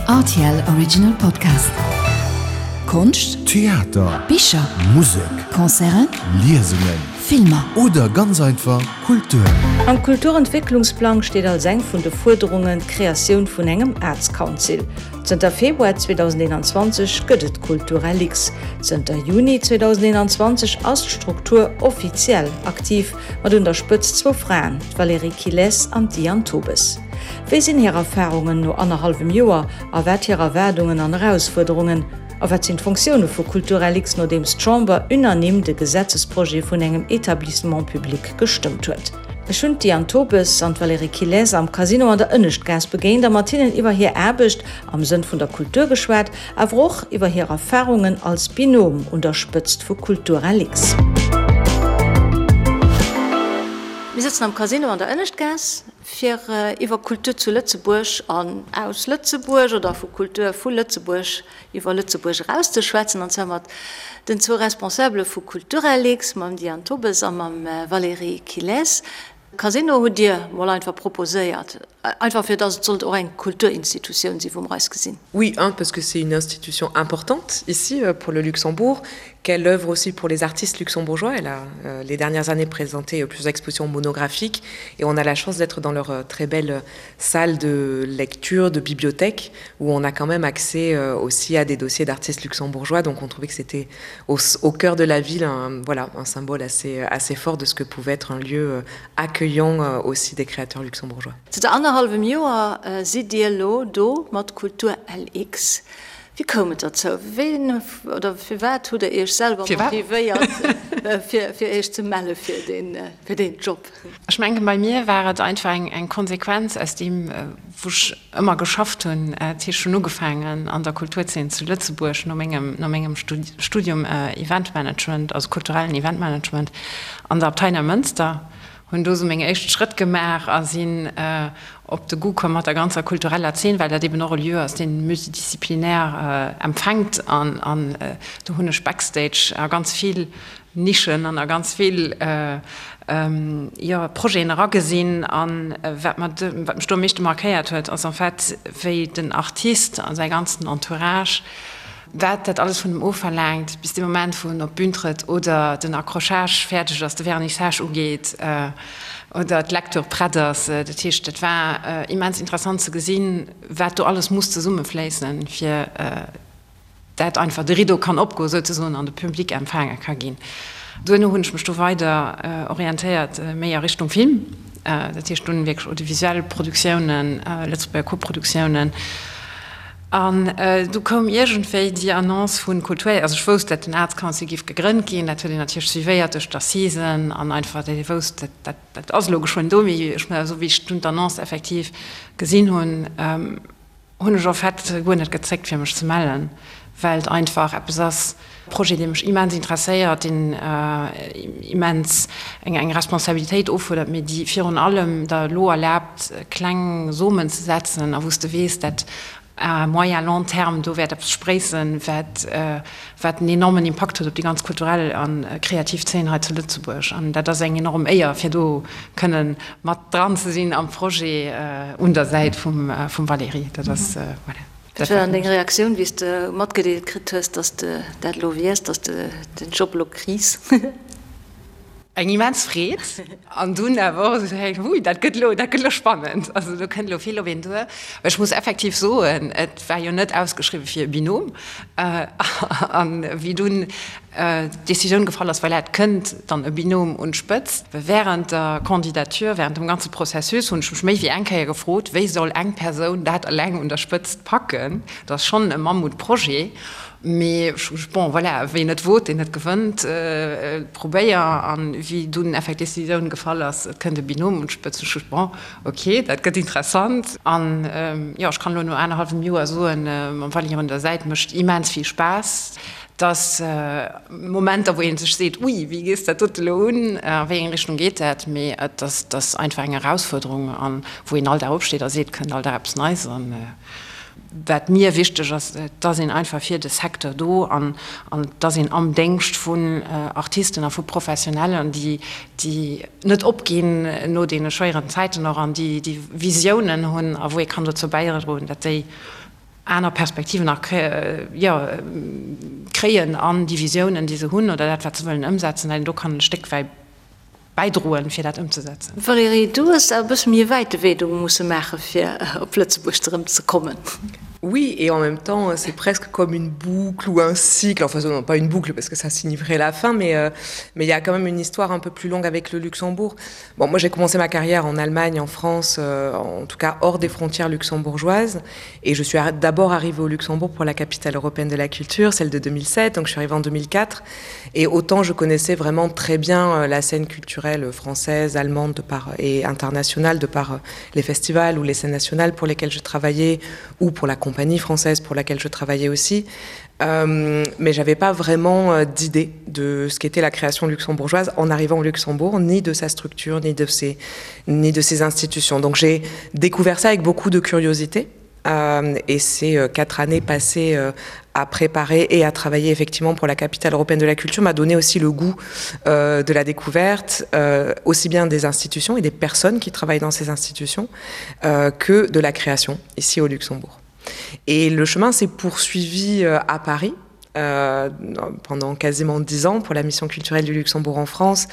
Rtl Original Podcast. Konscht, Theater, Bicher, Musek, Concerten, Liesungen, Filmer. Oder ganz einfach Kultur. Am Kulturentwécklungsplang steet als eng vun de Fuerderungen d'Kreatioun vun engem Arts Council. Zënter Februar 2021 gëtt et Culturalix. Zënter Juni 2021 ass d'Struktur offiziell aktiv, mat un der Spëtzt zwou Fraen, d'Valérie Quilès an d'Diane Tobes. Wéi sinn hir Erfarungen no annerhallwem Joer a wat hir Erwaardungen an Erausfuerderungen? A wat sinn d'Fonktioune vu Culturalix, nodeems d'Chamber unanime de Gesetzesprojet vun engem Etablissement public gestëmmt huet? Ech hunn d'Diane Tobes an d'Valérie Quilès am Casino an der Ënneschtgaass begéint a mat hinnen iwwer hir Aarbecht am Sënn vun der Kultur geschwat, awer och iwwer hir Erfarungen als Binôme un der Spëtzt vu Culturalix. Mir sëtzen am Casino an der Ënneschtgaass. Fir iwwer Kultur zu Lëtzebuerg an aus Lëtzebuerg oder vu Kultur vu Lëtzebuerg iwwer Lëtzebuerg eraus ze schwätzen, an zwar mat den zwou Responsabele vu Culturelix, mam Diane Tobes a mam Valérie Quilès. Casino hutt Dir mol einfach proposéiert, einfach fir datt et sollt och eng Kulturinstitutioun sinn, wou mer eis gesinn. Oui, un, parce que c'est une institution importante ici pour le Luxembourg, qu'elle œuvre aussi pour les artistes luxembourgeois. Elle a euh, les dernières années présenté euh, plusieurs expositions monographiques et on a la chance d'être dans leur euh, très belle salle de lecture, de bibliothèque, où on a quand même accès aussi à des dossiers d'artistes luxembourgeois. Donc on trouvait que c'était au, au cœur de la ville un, voilà, un symbole assez, assez fort de ce que pouvait être un lieu accueillant aussi des créateurs luxembourgeois. Zanter annerhallwem Joer sidd Dir elo do mat Kultur LX. Wéi koum et derzou? Ween oder firwat hutt Der Iech selwer motivéiert, fir Iech ze melle fir deen Job? Ech mengen, bei mir war et einfach eng Konsequenz aus deem, wou ech ëmmer geschafft hunn. Dat heescht, ech hunn ugefaangen an der Kulturzeen zu Lëtzebuerg no mengem, no mengem Studium Eventmanagement, also kulturellen Eventmanagement an der Abtei Neimënster. Hunn do sou meng éischt Schrëtt gemaach a sinn op de Goût komm mat der ganzer kultureller Zeen, well dat eben och e Lieu ass, deen multidisciplinaire empfänkt. An do hunn ech backstage a ganz vill Nischen an a ganz vill, jo, Projeten eragesinn. A wat mer, wat mech do am meeschte markéiert huet, ass en fait, wéi den Artist a säi ganzen Entourage, Wat dat alles vun em ofverlaangt, bis dee Moment, wou en op d'Bün trëtt oder den Accrochage fäerdeg ass, de Vernissage ugeet oder d'Lecture prett ass. Dat heescht, dat war immens interessant ze gesinn, wat do alles muss zesummefléissen, fir dat einfach de Rideau kann opgoen souzesoen an de Public empfaange ka ginn. Duerno hunn ech mech do weider orientéiert, méi a Richtung Film, dat heescht dunn wierklech audiovisuell Produktiounen, Lëtzebuerger Koproduktiounen. An du koum iergendwéi déi Annonce vu Kultur, also ech wousst, dat den Arts Council géif gegrënnt ginn, dat huet een natierlech suivéiert duerch d'Assisen an einfach, dat ee wousst, dat, dat, dat ass elo geschwënn do. Mee ech, esou wéi ech dunn d'Annonce effektiv gesinn hunn, hunn ech en fait guer net gezéckt, fir mech ze mellen, well et einfach eppes ass, Projet, dee mech immens interesséiert, deen immens eng Responsabilitéit offuerdert, mee déi virun allem der elo erlaabt, kleng Somen ze setzen a wou s de weess, dat à moyen, long terme do wäert eppes spréissen, wat wat en enormen Impakt huet op déi ganz kulturell a kreativ Zeen hei zu Lëtzebuerg. An dat ass eng enorm Éier, fir do kënne mat dran ze sinn am Projet un der Säit vum Valérie. Dat ass, voilà. Wat war dann deng Reaktioun, wéi s de matgedeelt kritt hues, dass de dat elo wiers, dass de den Job elo kriss? Eng immens Freed an dunn awer och esou, hey, hui, dat gëtt elo, dat gëtt elo spannend. Also do kënnt elo vill op een duer. Well ech muss effektiv soen, et war jo net ausgeschriwwe fir e Binôme. An wéi dunn d'Decisioun gefall ass, voilà, et kënnt dann e Binôme un d'Spëtzt. Während der Candidature, während dem ganze Processus hunn ech mech méi wéi eng Kéier gefrot, wéi soll eng Persoun dat eleng un der Spëtzt packen? Dat ass schonn e Mammutprojet, mee ech hu gesot, bon, voilà, wien net wot, deen net gewënnt, probéier. An wéi dunn effektiv d'Decisioun gefall ass, et kënnt e Binôme un d'Spëtzt, hu ech gesot, bon, ok, dat gëtt interessant. An jo, ech kann elo no anerhallwem Joer soen, mam Valérie un der Säit mécht immens vill Spaass. Dass Momenter, wou ee sech seet, ui, wéi gees dat dote elo un, a wéi eng Richtung geet dat, mee et ass einfach eng Erausfuerderung an wou een all Dag opsteet a seet, kënnt all Dag eppes Neies. An wat mir wichteg ass, et ass een einfach fir de Secteur do an et ass een am Déngscht vun Artisten a vu Professionellen, déi déi net opginn no deene schwéieren Zäiten och an déi déi Visiounen hunn a wou ee kann dozou bäidroen, datt déi. aner Perspektiven nach jo kréien an déi Visiounen, déi se hunn oder dat, wat se wëllen ëmsetzen, dat een do kann e Stéck wäit bäidroen, fir dat ëmzesetzen. Valérie, du hues awer e bësse méi e wäite Wee do musse maache fir op Lëtzebuerg erëm ze kommen. Oui, et en même temps, c'est presque comme une boucle ou un cycle, enfin non, pas une boucle parce que ça signifierait la fin, mais euh, mais il y a quand même une histoire un peu plus longue avec le Luxembourg. Bon, moi j'ai commencé ma carrière en Allemagne, en France, euh, en tout cas hors des frontières luxembourgeoises et je suis d'abord arrivée au Luxembourg pour la capitale européenne de la culture, celle de 2007, donc je suis arrivée en 2004 et autant je connaissais vraiment très bien euh, la scène culturelle française, allemande de par, et internationale de par euh, les festivals ou les scènes nationales pour lesquelles je travaillais ou pour la compagnie française pour laquelle je travaillais aussi. Euh, mais j'avais pas vraiment euh, d'idée de ce qu'était la création luxembourgeoise en arrivant au Luxembourg, ni de sa structure, ni de ses, ni de ses institutions. Donc j'ai découvert ça avec beaucoup de curiosité. Euh, et ces euh, quatre années passées euh, à préparer et à travailler effectivement pour la capitale européenne de la culture m'a donné aussi le goût euh, de la découverte, euh, aussi bien des institutions et des personnes qui travaillent dans ces institutions euh, que de la création ici au Luxembourg. Et le chemin s'est poursuivi euh, à Paris euh, pendant quasiment dix ans pour la mission culturelle du Luxembourg en France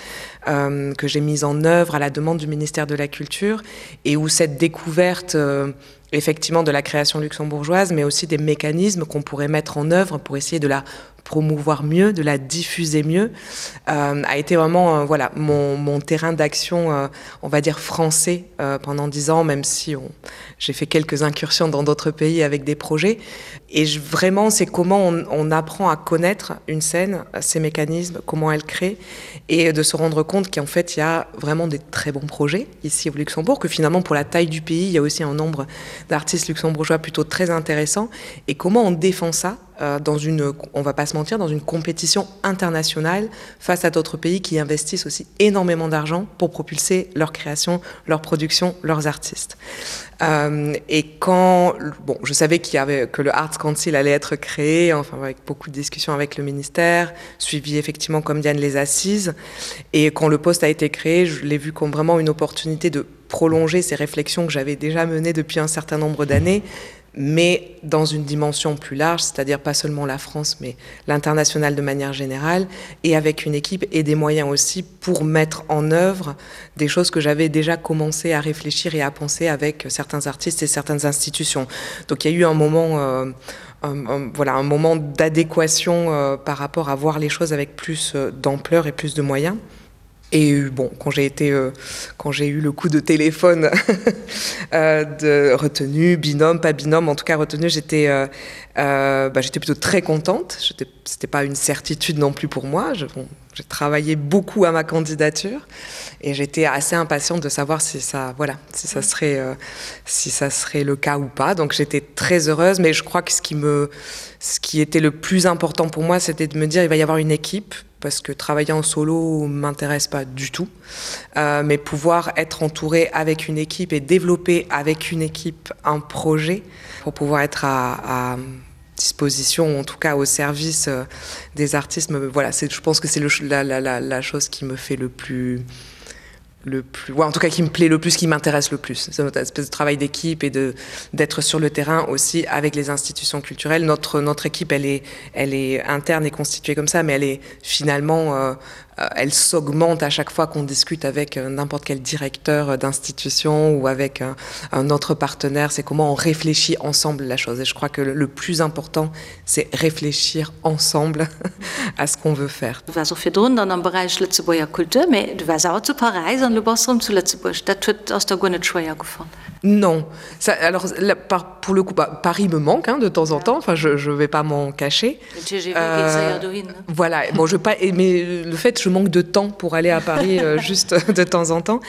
euh, que j'ai mise en œuvre à la demande du ministère de la culture et où cette découverte euh, effectivement de la création luxembourgeoise mais aussi des mécanismes qu'on pourrait mettre en œuvre pour essayer de la promouvoir mieux, de la diffuser mieux, euh, a été vraiment euh, voilà, mon, mon terrain d'action, euh, on va dire français euh, pendant dix ans, même si j'ai fait quelques incursions dans d'autres pays avec des projets. Et je, vraiment, c'est comment on, on apprend à connaître une scène, ses mécanismes, comment elle crée, et de se rendre compte qu'en fait, il y a vraiment des très bons projets ici au Luxembourg, que finalement, pour la taille du pays, il y a aussi un nombre d'artistes luxembourgeois plutôt très intéressant. Et comment on défend ça euh, dans une, on va pas se mentir, dans une compétition internationale face à d'autres pays qui investissent aussi énormément d'argent pour propulser leur création, leur production, leurs artistes. Euh, et quand bon, je savais qu'il y avait que le Arts Council allait être créé, enfin avec beaucoup de discussions avec le ministère, suivi effectivement comme Diane les assises et quand le poste a été créé, je l'ai vu comme vraiment une opportunité de prolonger ces réflexions que j'avais déjà menées depuis un certain nombre d'années mais dans une dimension plus large, c'est-à-dire pas seulement la France, mais l'international de manière générale, et avec une équipe et des moyens aussi pour mettre en œuvre des choses que j'avais déjà commencé à réfléchir et à penser avec certains artistes et certaines institutions. Donc il y a eu un moment, euh, un, un, voilà, un moment d'adéquation euh, par rapport à voir les choses avec plus euh, d'ampleur et plus de moyens. Et bon, quand j'ai été euh, quand j'ai eu le coup de téléphone euh, de retenue, binôme, pas binôme, en tout cas retenue, j'étais euh, euh, bah, j'étais plutôt très contente. C'était pas une certitude non plus pour moi. Je, bon, j'ai travaillé beaucoup à ma candidature et j'étais assez impatiente de savoir si ça voilà si ça serait euh, si ça serait le cas ou pas. Donc j'étais très heureuse, mais je crois que ce qui me ce qui était le plus important pour moi, c'était de me dire il va y avoir une équipe parce que travailler en solo m'intéresse pas du tout euh, mais pouvoir être entouré avec une équipe et développer avec une équipe un projet pour pouvoir être à, à disposition ou en tout cas au service euh, des artistes me, voilà c'est je pense que c'est la, la, la, la chose qui me fait le plus le plus ouais, en tout cas qui me plaît le plus qui m'intéresse le plus c'est notre espèce de travail d'équipe et de d'être sur le terrain aussi avec les institutions culturelles notre notre équipe elle est elle est interne et constituée comme ça mais elle est finalement euh, euh, elle s'augmente à chaque fois qu'on discute avec euh, n'importe quel directeur euh, d'institution ou avec un, un autre partenaire c'est comment on réfléchit ensemble la chose et je crois que le, le plus important c'est réfléchir ensemble à ce qu'on veut faire Du waars och virdrun dann am Beräich Lëtzebuerger Kultur, mee du waars awer zu Paräis an elo bass de rëm zu Lëtzebuerg. Dat huet, ass der guer net schwéier gefall? Non, ça, alors là, par, pour le coup, bah, Paris me manque hein, de temps en temps, enfin je, je vais pas m'en cacher. Den TGV geet séier dohin, ne? Voilà, bon, je pas, mais le fait, je manque de temps pour aller à Paris euh, juste de temps en temps.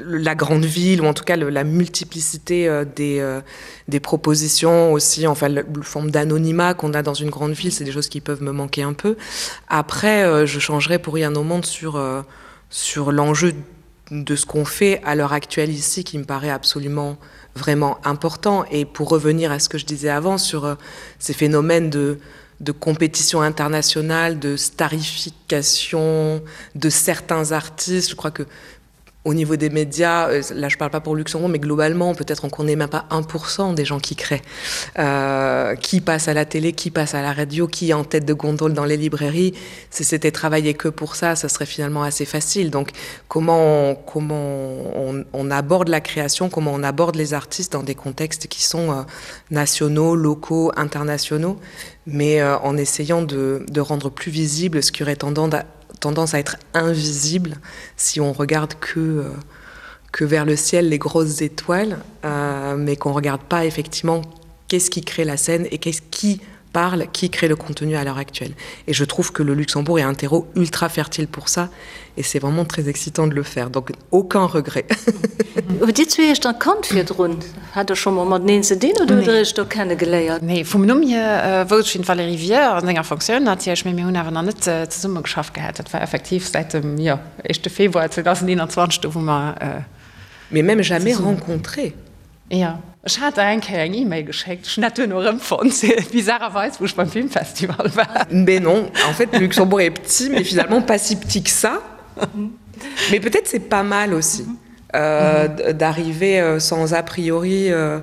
La grande ville, ou en tout cas le, la multiplicité euh, des, euh, des propositions aussi, enfin la forme d'anonymat qu'on a dans une grande ville, c'est des choses qui peuvent me manquer un peu. Après, euh, je changerais pour rien au monde sur, euh, sur l'enjeu de ce qu'on fait à l'heure actuelle ici qui me paraît absolument vraiment important et pour revenir à ce que je disais avant sur euh, ces phénomènes de, de compétition internationale, de starification de certains artistes, je crois que. Au niveau des médias, euh, là je parle pas pour Luxembourg, mais globalement peut-être on connaît même pas 1% des gens qui créent, euh, qui passe à la télé, qui passe à la radio, qui est en tête de gondole dans les librairies. Si c'était travaillé que pour ça, ça serait finalement assez facile. Donc comment on, comment on, on aborde la création, comment on aborde les artistes dans des contextes qui sont euh, nationaux, locaux, internationaux, mais euh, en essayant de, de rendre plus visible ce qui aurait tendance à, tendance à être invisible si on regarde que, euh, que vers le ciel les grosses étoiles, euh, mais qu'on regarde pas effectivement qu'est-ce qui crée la scène et qu'est-ce qui parle, qui crée le contenu à l'heure actuelle. Et je trouve que le Luxembourg est un terreau ultra fertile pour ça et c'est vraiment très excitant de le faire. Donc aucun regret. Hutt Dir zwee Iech dann kannt virdrun? Hat Der scho mol mateneen ze dinn oder hutt Der Iech do kenne geléiert? Nee, vum Numm hier wousst ech, wien d'Valérie wier, an senger Fonctioun natierlech, mee mir hunn awer nach net zesumme geschafft gehat. Dat war effektiv säit dem, jo, éischte Februar 2021, do wou mer. Mais même jamais rencontré. Jo, ech hat der eng Kéier eng E-Mail geschéckt, ech hunn dat duerno erëmfonnt, bizarrerweis, wou ech beim Filmfestival war. Mais non, en fait le Luxembourg est petit, mais finalement pas si petit que ça. Mais peut-être c'est pas mal aussi euh, d'arriver euh, sans a priori euh,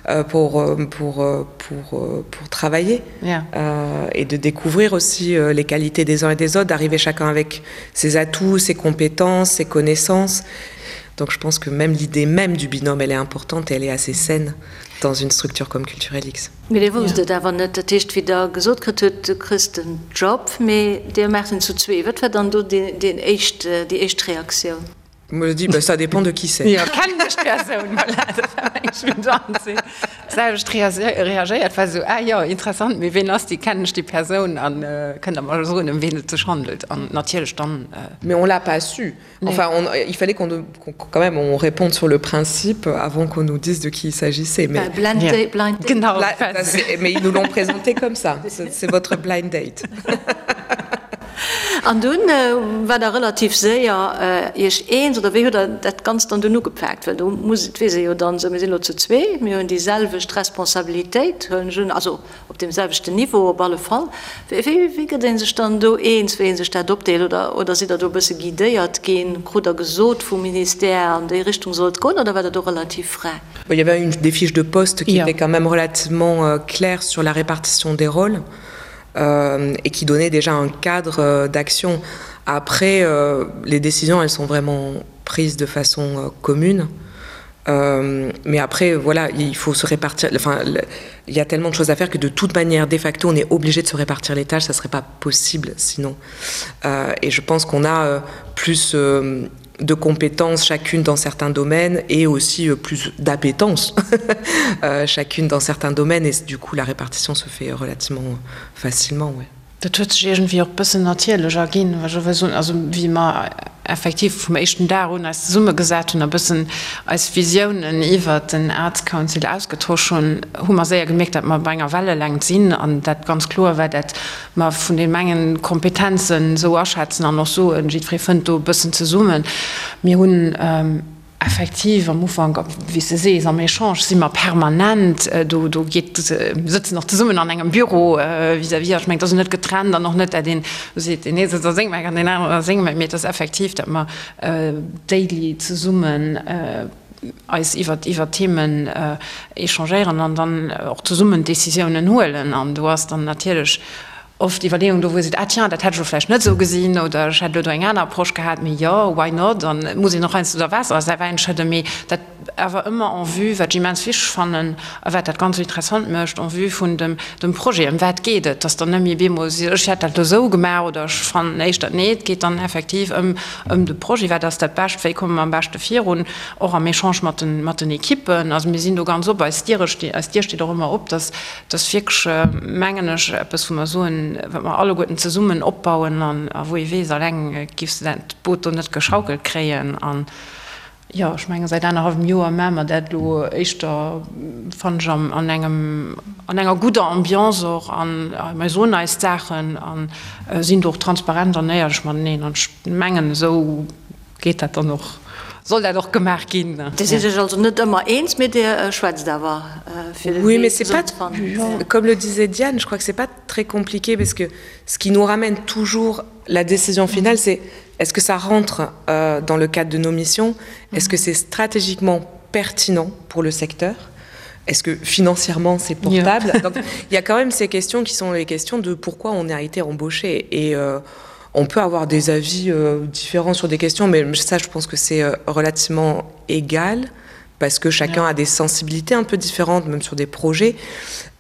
euh, pour, euh, pour, euh, pour, euh, pour travailler yeah. euh, et de découvrir aussi euh, les qualités des uns et des autres, d'arriver chacun avec ses atouts, ses compétences, ses connaissances. Donc je pense que même l'idée même du binôme elle est importante et elle est assez saine dans une structure comme Culturelix. Mee Dir wousst et awer net, dat heescht wéi Der gesot kritt hutt, du kriss den Job, mee Dir maacht en zu zwee. Wat war dann do deen éischt, déi éischt Reaktioun? Moi je dis bah ça dépend de qui c'est. Jo, kennen ech d'Persoun? Voilà, dat war meng Spontan d'selwecht reagéiert, war esou, ah jo, interessant, mee ween ass déi, kennen ech déi Persoun an kënnt Der mer soen ëm ween et sech handelt? An natierlech dann. Mais on l'a pas su. Enfin, on, il fallait qu'on qu quand même on réponde sur le principe avant qu'on nous dise de qui il s'agissait. Mais, bah, blind yeah. date, blind date. Genau, Bla, mais ils nous l'ont présenté comme ça. C'est votre blind date. An dunn äh, war der relativ séier äh, Iech eens oder wéi hutt der dat Ganzt dann dunn ugepaakt? Well do muss, et weess ee jo dann esou, mir sinn elo zu zwee, mir hunn déi selwecht Responsabilitéit, huelen ech un, also Op deem selwechten Niveau op alle Fall. Wéi gëtt ee sech dann do eens, wéi ee sech dat opdeelt? Oder, oder sidd Der do e bësse guidéiert ginn? Krut Der gesot vum Ministère, an déi Richtung soll et goen, oder war Der do relativ fräi? Il y avait une des fiches de poste qui étaient quand même relativement euh, claires sur la répartition des rôles euh, et qui donnait déjà un cadre euh, d'action. Après, euh, les décisions, elles sont vraiment prises de façon euh, commune. Euh, mais après voilà il faut se répartir enfin il y a tellement de choses à faire que de toute manière de facto on est obligé de se répartir les tâches ça serait pas possible sinon euh, et je pense qu'on a euh, plus euh, de compétences chacune dans certains domaines et aussi euh, plus d'appétence euh, chacune dans certains domaines et du coup la répartition se fait relativement facilement ouais. Dat huet sech iergendwéi och e bëssen natierlech erginn, wa ech elo wëll soen. Also wéi mer effektiv vum éischten Dag un eis zesummegesat hunn a bëssen eis Visiounen iwwert den Arts Council ausgetosch hunn, hu mer séier gemierkt, datt mer op enger Wellelängt sinn an dat ganz kloer war, dat mer vun deem engen d'Kompetenzen esou aschätzen an och soen, jiddweree fënnt do e bëssen zesummen. Mir hunn. Effektiv, am Ufank, wéi s de sees, am Echange si mer permanent, do do geet, mir sëtzen och zesummen an engem Büro vis-à-vis, ech mengen, et ass jo net getrennt an och net, dat een do seet, deen ee sëtzt a sengem Eck an deen aneren a sengem Eck, mee et ass effektiv, datt mer daily zesummen eis iwwer iwwer Themen échangéieren an dann och zesummen Décisiounen huelen an do ass dann natierlech oft Iwwerleeung do, wou ee seet, ah tiens, dat hätt ech elo vläicht net esou gesinn oder ech hätt elo do eng aner Approche gehat, mee jo, why not? An et muss een och heiansdo da Waasser a säi Wäin schëdden, mee dat awer ëmmer en vue, wat ech immens wichteg fannen a wat dat Ganzt esou interessant mécht, en vue vun dem dem Projet, ëm wat geet et, dass dann net méi bemol si ech hätt dat elo esou gemaach oder ech fannen éischter, nee, et geet dann effektiv ëm ëm de Projet, wat ass dat Bescht, wéi komme mer am beschte virun, och am Echange mat den mat den Ekippen. Also mir sinn do ganz op, eis Diere sti eis Dier steet och ëmmer op, dass Dat ass wierklech, mengen ech, eppes, wou mer soen, wat mer alleguerten zesummen opbauen an a wou ee weess, alleng giffs de dat Boot do net geschaukelt kréien. An jo, ech menge säit anerhallwem Joer maache mer dat elo éischter, fannen ech, an engem, an enger gudder Ambiance och an mer soen eis d'Saachen a sinn do och transparent an éierlech mateneen. An ech mengen, esou geet dat dann och. soll dat och gemaach ginn. Dir sidd Iech also net ëmmer eens, mee Dir schwätzt awer fir de Wee zesumme ze fannen. Comme le disait Diane, je crois que c'est pas très compliqué parce que ce qui nous ramène toujours la décision finale, c'est est-ce que ça rentre euh, dans le cadre de nos missions Est-ce que c'est stratégiquement pertinent pour le secteur Est-ce que financièrement c'est portable yeah. Donc il y a quand même ces questions qui sont les questions de pourquoi on a été embauché et euh, on peut avoir des avis euh, différents sur des questions, mais ça je pense que c'est euh, relativement égal parce que chacun yeah. a des sensibilités un peu différentes, même sur des projets.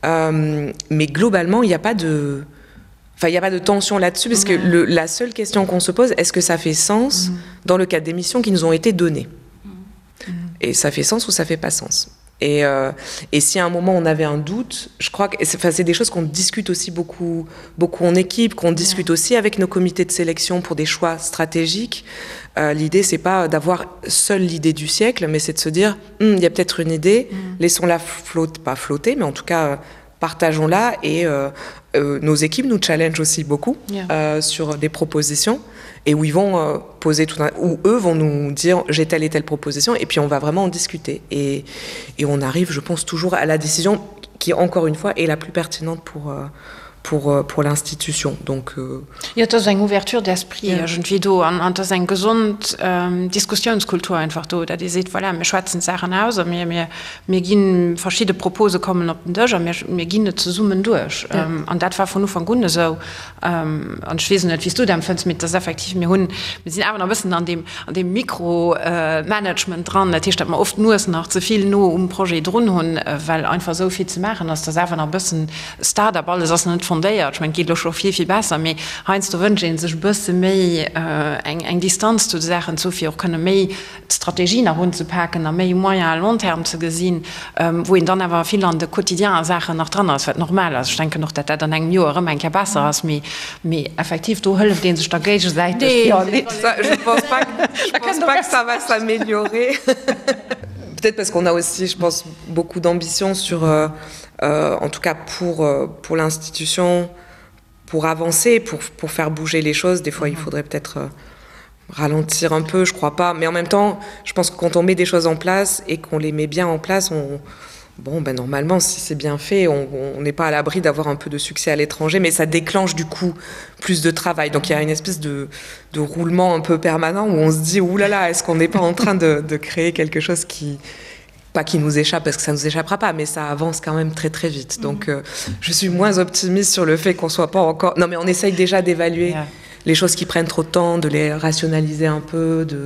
Euh, mais globalement, il n'y a pas de enfin il n'y a pas de tension là-dessus parce mmh. que le, la seule question qu'on se pose est-ce que ça fait sens mmh. dans le cadre des missions qui nous ont été données mmh. et ça fait sens ou ça fait pas sens et, euh, et si à un moment on avait un doute je crois que enfin c'est des choses qu'on discute aussi beaucoup beaucoup en équipe qu'on discute ouais. aussi avec nos comités de sélection pour des choix stratégiques euh, l'idée c'est pas d'avoir seule l'idée du siècle mais c'est de se dire hm, il y a peut-être une idée mmh. laissons la flotte pas flotter mais en tout cas euh, partageons la et euh, euh, nos équipes nous challenge aussi beaucoup yeah. euh, sur des propositions et où ils vont euh, poser tout un, où eux vont nous dire j'ai telle et telle proposition et puis on va vraiment en discuter et, et on arrive je pense toujours à la décision qui encore une fois est la plus pertinente pour euh, pour, euh, pour l'institution donc euh... ja, das eng ouverture d'esprit ja. irgendwie do an, an das eng gesund ähm, Diskussionskultur einfach do da die seht voilà, mir schwätzen Sachen aus mir mir Mir ginn, verschidde Propose kommen op den Dësch a mir, mir ginn et zesummen duerch. An dat war vun Ufank un esou. An ech weess net, wéi s du dat empfënns, mee et ass effektiv, mir hunn, mir sinn awer nach e bëssen an deem, an deem Mikromanagement dran. Dat heescht, datt mer oft d'Nues nach ze vill no um Projet drun hunn, well einfach esou vill ze maachen ass. Et ass awer nach e bëssen Start-up, alles ass nach net fondéiert. Ech mengen, et geet elo scho vill, vill besser, mee heiansdo wënscht ee sech e bësse méi eng, eng Distanz zu de Saachen ze hu fir och kënne méi d'Strategie nach unzepaken a méi moyen à long terme ze gesinn, wou een dann awer vill an de quotidienen Saachen nach dran ass, wat normal ass. Ech denken och, datt dat an engem Joer erëm eng Kéier besser ass, mee, mee effektiv, do hëlleft ee sech da géigesäiteg. Nee, je pense pas, je pense pas que ça va s'améliorer. Peut-être parce qu'on a aussi, je pense, beaucoup d'ambition sur, euh, euh, en tout cas pour, euh, pour l'institution, pour avancer, pour, pour faire bouger les choses. Des fois, il faudrait peut-être euh, ralentir un peu, je crois pas. Mais en même temps, je pense que quand on met des choses en place et qu'on les met bien en place, on, bon ben normalement si c'est bien fait on n'est pas à l'abri d'avoir un peu de succès à l'étranger mais ça déclenche du coup plus de travail donc il y a une espèce de, de roulement un peu permanent où on se dit oulala là là, est-ce qu'on n'est pas en train de, de créer quelque chose qui pas qui nous échappe parce que ça nous échappera pas mais ça avance quand même très très vite donc mm -hmm. euh, je suis moins optimiste sur le fait qu'on soit pas encore non mais on essaye déjà d'évaluer yeah. les choses qui prennent trop de temps de les rationaliser un peu de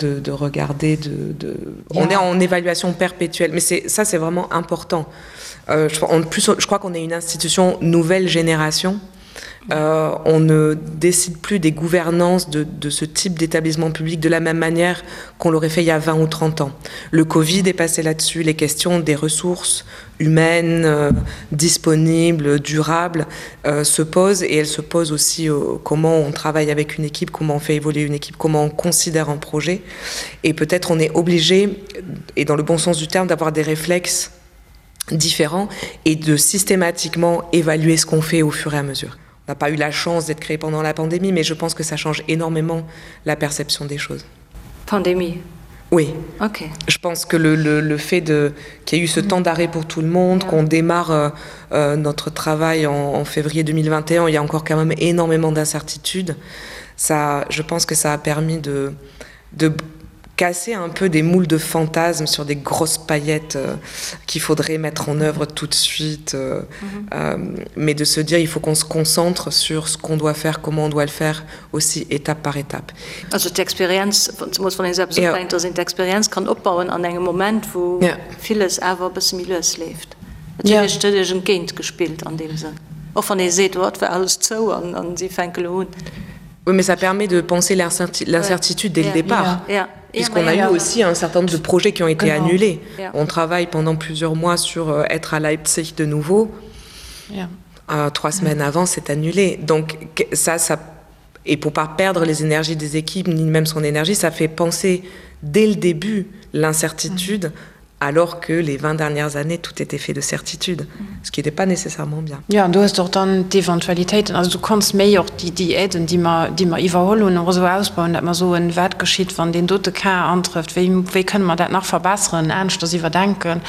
de, de regarder de, de yeah. on est en évaluation perpétuelle mais c'est ça c'est vraiment important euh, je, en plus je crois qu'on est une institution nouvelle génération et Euh, on ne décide plus des gouvernances de, de ce type d'établissement public de la même manière qu'on l'aurait fait il y a 20 ou 30 ans. Le Covid est passé là-dessus, les questions des ressources humaines euh, disponibles, durables euh, se posent et elles se posent aussi euh, comment on travaille avec une équipe, comment on fait évoluer une équipe, comment on considère un projet. Et peut-être on est obligé, et dans le bon sens du terme, d'avoir des réflexes différents et de systématiquement évaluer ce qu'on fait au fur et à mesure n'a pas eu la chance d'être créé pendant la pandémie, mais je pense que ça change énormément la perception des choses. Pandémie Oui. Okay. Je pense que le, le, le fait qu'il y ait eu ce mm. temps d'arrêt pour tout le monde, yeah. qu'on démarre euh, euh, notre travail en, en février 2021, il y a encore quand même énormément d'incertitudes. Ça, je pense que ça a permis de, de casser un peu des moules de fantasmes sur des grosses paillettes euh, qu'il faudrait mettre en œuvre tout de suite euh, mm -hmm. euh, mais de se dire il faut qu'on se concentre sur ce qu'on doit faire comment on doit le faire aussi étape par étape also d'Experienz ja. d'Experienz kann opbauen an engem Moment wou ja. villes awer e bësse méi lues leeft ja. entgéint gespillt an deem Sënn och wann ee seet oh, et war alles zou an, an si fänke lo un. Oui, mais ça permet de penser l'incertitude dès yeah. le départ. Yeah. Yeah. Puisqu'on a eu aussi un certain nombre de projets qui ont été Genau. annulés. Yeah. On travaille pendant plusieurs mois sur euh, être à Leipzig de nouveau. Yeah. Euh, trois semaines avant, c'est annulé. Donc ça, ça et pour pas perdre les énergies des équipes ni même son énergie, ça fait penser dès le début l'incertitude mm. Alors que les 20 dernières années, tout était fait de certitudes, ce qui n'était pas nécessairement bien. Jo, an du hues och dann d'Eventualitéiten, also du konns méi och déi, déi Aiden, déi mer, déi mer iwwerholl hunn, och esou ausbauen, datt mer soen, wat geschitt, wann deen dote Cas antrëfft, wéi, wéi kënne mer dat nach verbesseren, aneschters iwwerdenken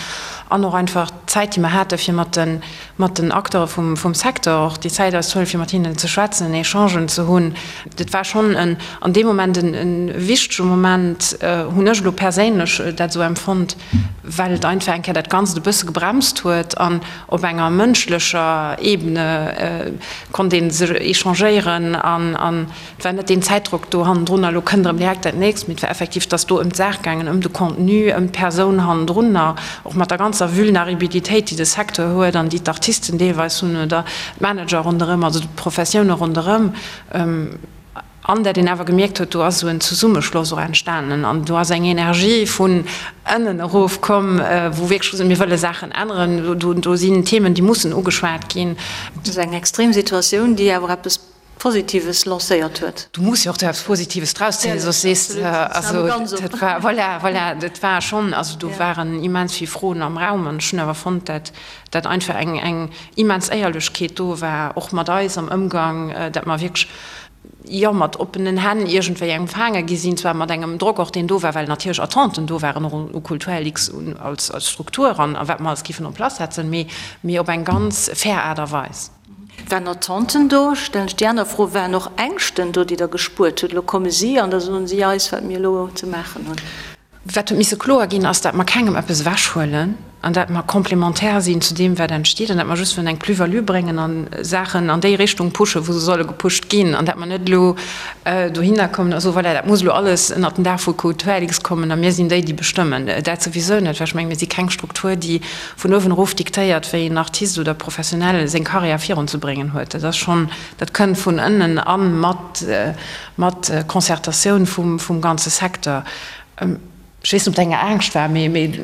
an och einfach d'Zäit, déi mer hate fir mat de, mat den Acteure vum, vum Secteur och déi Zäit eis ze huelen, fir mat hinnen ze schwätzen, Echangen ze hunn. Dat war schonn en, an deem Moment en, e wichtege Moment, hunn ech elo perséinlech dat esou empfonnt, well et einfach eng Kéier dat Ganzt e bësse gebremst huet an op enger mënschlecher Ebene konnt ee sech échangéieren an, an Et war net deen Zäitdrock do hannendrun, elo kënnt erëm direkt dat nächst, mee et war effektiv, et ass do ëm d'Saach gaangen, ëm de Contenu, ëm d'Persoun hannendrunner, och mat der ganzer Vulneribilitéit, déi de Secteur huet an déi d'Artisten deelweis hunn oder d'Manager ronderëm, also d'Professioune ronderëm. An dat een awer gemierkt huet, do ass esou en Zesummeschloss och entstanen an do ass eng Energie vun ënnen erof komm, wou wierklech gesot, mir wëlle Saachen änneren, do sinn Themen, déi mussen ugeschwat ginn. Dat ass eng extrem Situatioun, déi awer eppes Positives lancéiert huet. Du muss jo och do eppes Positives draus zéien, soss sees de, also dat war, voilà, voilà, dat war schonn, also do waren immens vill Froen am Raum an ech hunn awer fonnt, dat dat einfach eng eng immens Éierlechkeet do war, och mat eis am Ëmgang, dat mer wierklech, jo, mat oppenen Hänn iergendwéi empfaange gi sinn, zwar mat engem Drock och, deen do war, well natierlech Attenten do waren, och u Kulturlux als als Struktur an a wat mer alles géifen en place setzen, mee mee op eng ganz fair Aart a Weis. Waren Attenten do? Stellen ech déi aner Fro, Waren och Ängschten do, déi Der gespuert hutt? Elo komme si an da soen si eis, wat mir elo ze maachen hunn. Wat huet misse kloer ginn, ass, dat mer kengem eppes ewechhuelen an dat mer complémentaire sinn zu deem, wat entsteet an dat mer just wëllen eng Plus-value bréngen a Saachen an déi Richtung pushen, wou se solle gepusht ginn an dat mer net elo dohinner kommen a soen, voilà, dat muss elo alles ënnert den Dag vu Kulturlux kommen a mir sinn déi, déi bestëmmen. Dat souwisou net, well ech mengen, mir si keng Struktur, déi vun uewen erof diktéiert, wéi en Artist oder Professionell seng Karriär virunzebréngen huet. Dat ass schonn, dat kënnt vun ënnen a mat, mat Concertatioun vum, vum ganze Secteur. Ech weess net, ob dat eng Angscht war, mee, mee.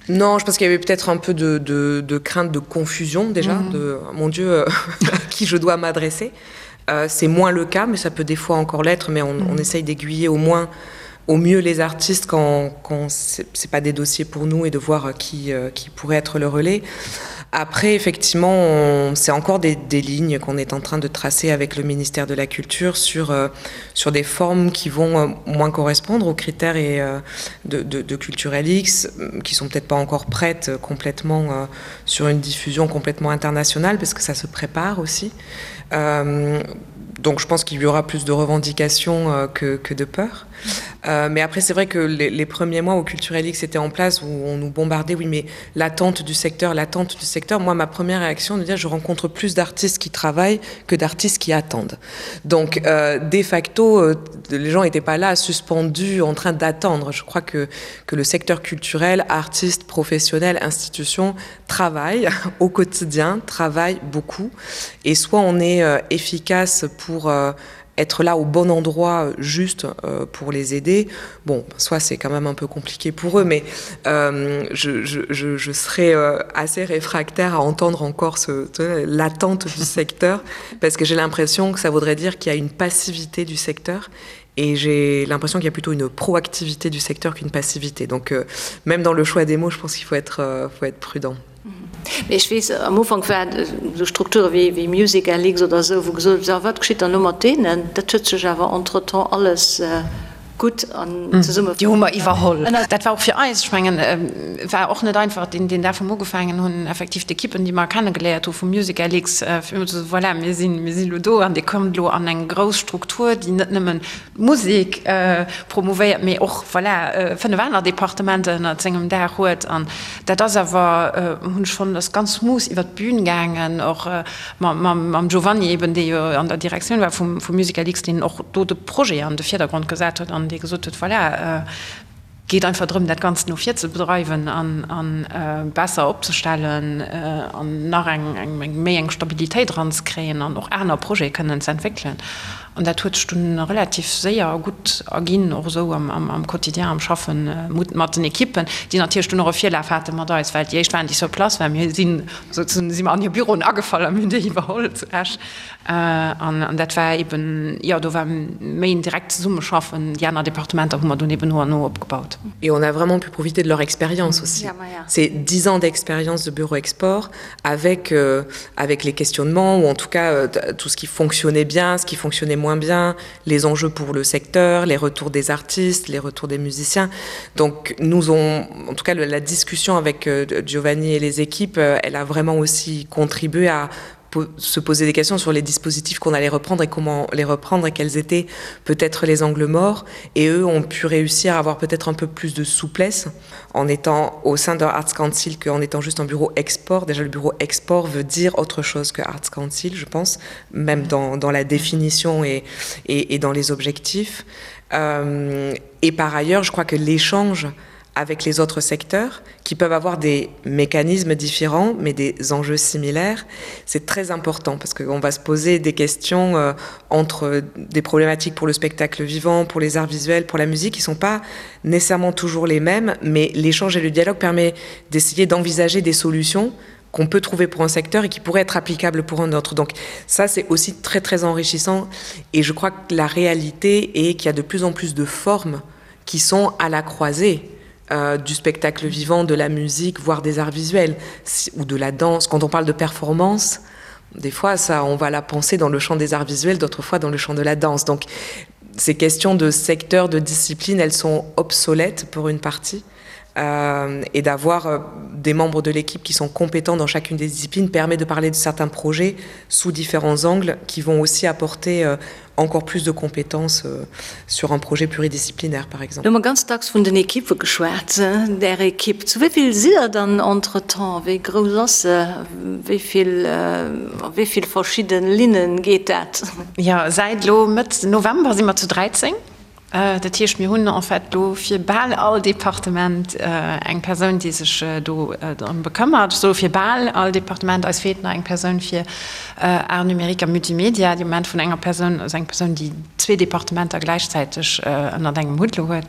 Non, je pense qu'il y avait peut-être un peu de, de, de crainte de confusion déjà, mm -hmm. de mon Dieu, à qui je dois m'adresser. Euh, C'est moins le cas, mais ça peut des fois encore l'être, mais on, mm -hmm. on essaye d'aiguiller au moins au mieux les artistes quand, quand c'est pas des dossiers pour nous et de voir euh, qui, euh, qui pourrait être le relais. Après effectivement c'est encore des, des lignes qu'on est en train de tracer avec le ministère de la culture sur, euh, sur des formes qui vont euh, moins correspondre aux critères et, euh, de, de, de culturel X qui sont peut-être pas encore prêtes euh, complètement euh, sur une diffusion complètement internationale parce que ça se prépare aussi. Euh, donc je pense qu'il y aura plus de revendications euh, que, que de peur. Euh, mais après c'est vrai que les, les premiers mois au Culturelix était en place où on nous bombardait oui mais l'attente du secteur l'attente du secteur moi ma première réaction de dire je rencontre plus d'artistes qui travaillent que d'artistes qui attendent donc euh, de facto euh, les gens n'étaient pas là suspendus en train d'attendre je crois que que le secteur culturel artistes professionnels institutions travaillent au quotidien travaillent beaucoup et soit on est euh, efficace pour euh, être là au bon endroit euh, juste euh, pour les aider bon soit c'est quand même un peu compliqué pour eux mais euh, je, je, je, je serais euh, assez réfractaire à entendre encore ce l'attente du secteur parce que j'ai l'impression que ça voudrait dire qu'il y a une passivité du secteur et j'ai l'impression qu'il y a plutôt une proactivité du secteur qu'une passivité donc euh, même dans le choix des mots je pense qu'il faut être euh, faut être prudent Mee ech weess, am Ufank waren esou Strukture wéi wéi MusicLX oder esou, wou gesot huet, wat geschitt dann elo mat deenen? Dat huet sech awer entretemps alles gutt an zesumme. Déi hu mer iwwerholl. Dat war och fir eis, ech mengen, war och net einfach, deen deen Dag wou mer ugefaangen hunn, effektiv d'Ekippen, déi mer kennegeléiert hu vu MusicLX, fir ëmmer ze soen, voilà, mir sinn, mir sinn elo do an Dir kommt elo an eng grouss Struktur, déi net nëmmen d'Musek promouvéiert, mee och, voilà, 5 aner Departementer ënnert sengem Daach huet. An dat ass awer, hunn ech fonnt, ass ganz smooth iwwert d'Bün gaangen, och mam Giovanni eben, dee jo an der Direktioun war vum MusicalX, deen och do de Projet an de Virdergrond gesat huet an dee gesot huet, voilà, geet einfach drëm, dat Ganzt no vir ze bedreiwen a besser opzestellen an nach eng méi eng Stabilitéit eranzekréien an och aner Projete kënnen ze entwéckelen. An dat huet sech dunn relativ séier a gutt erginn, och esou am Quotidien, am Schaffe mat den Ekippen, déi natierlech dunn och e Virlaf hate mat eis, well déi éischt waren, déi sur place waren. Mir sinn souzesoen si mer an hir Büroen agefall a mir hunn déi iwwerholl zu Esch. An dat war eben, jo, do war méi en direkt Zesummeschaffen. Déi aner Departementer hu mer dunn eben no an no opgebaut. Et on a vraiment pu profiter de leur expérience aussi. C'est dix ans d'expérience de Bureau Export avec, euh, avec les questionnements ou en tout cas euh, tout ce qui fonctionnait bien, ce qui fonctionnait moins bien, les enjeux pour le secteur, les retours des artistes, les retours des musiciens. Donc nous ont en tout cas le, la discussion avec euh, Giovanni et les équipes, euh, elle a vraiment aussi contribué à se poser des questions sur les dispositifs qu'on allait reprendre et comment les reprendre et quels étaient peut-être les angles morts et eux ont pu réussir à avoir peut-être un peu plus de souplesse en étant au sein de Arts Council qu'en étant juste un bureau export déjà le bureau export veut dire autre chose que Arts Council je pense même dans, dans la définition et, et, et dans les objectifs euh, et par ailleurs je crois que l'échange avec les autres secteurs qui peuvent avoir des mécanismes différents mais des enjeux similaires c'est très important parce qu'on va se poser des questions euh, entre des problématiques pour le spectacle vivant pour les arts visuels pour la musique qui sont pas nécessairement toujours les mêmes mais l'échange et le dialogue permet d'essayer d'envisager des solutions qu'on peut trouver pour un secteur et qui pourrait être applicable pour un autre donc ça c'est aussi très très enrichissant et je crois que la réalité est qu'il y a de plus en plus de formes qui sont à la croisée euh, du spectacle vivant, de la musique, voire des arts visuels si, ou de la danse. Quand on parle de performance, des fois ça on va la penser dans le champ des arts visuels, d'autres fois dans le champ de la danse. Donc ces questions de secteur, de discipline, elles sont obsolètes pour une partie. Euh, et d'avoir euh, des membres de l'équipe qui sont compétents dans chacune des disciplines permet de parler de certains projets sous différents angles qui vont aussi apporter euh, encore plus de compétences euh, sur un projet pluridisciplinaire par exemple. Lo hu mer ganz dacks vun den Ekippe geschwat. Är Ekipp, zu wéi vill sidd der dann entretemps? Wéi grouss ass se? Wéi vill, a wéi vill verschidde Linne geet dat? Jo, säit elo Mëtt November si mer zu 13. Dat heescht, mir hunn en fait elo fir bal all Departement eng Persoun, déi sech do drëm bekëmmert. Ech soe fir bal all Departement. Eis feelt nach eng Persoun fir Arts numériques a Multimedia, déi am Moment vun enger Persoun, also eng Persoun, déi zwee Departementer gläichzäiteg ënnert engem Hutt elo huet.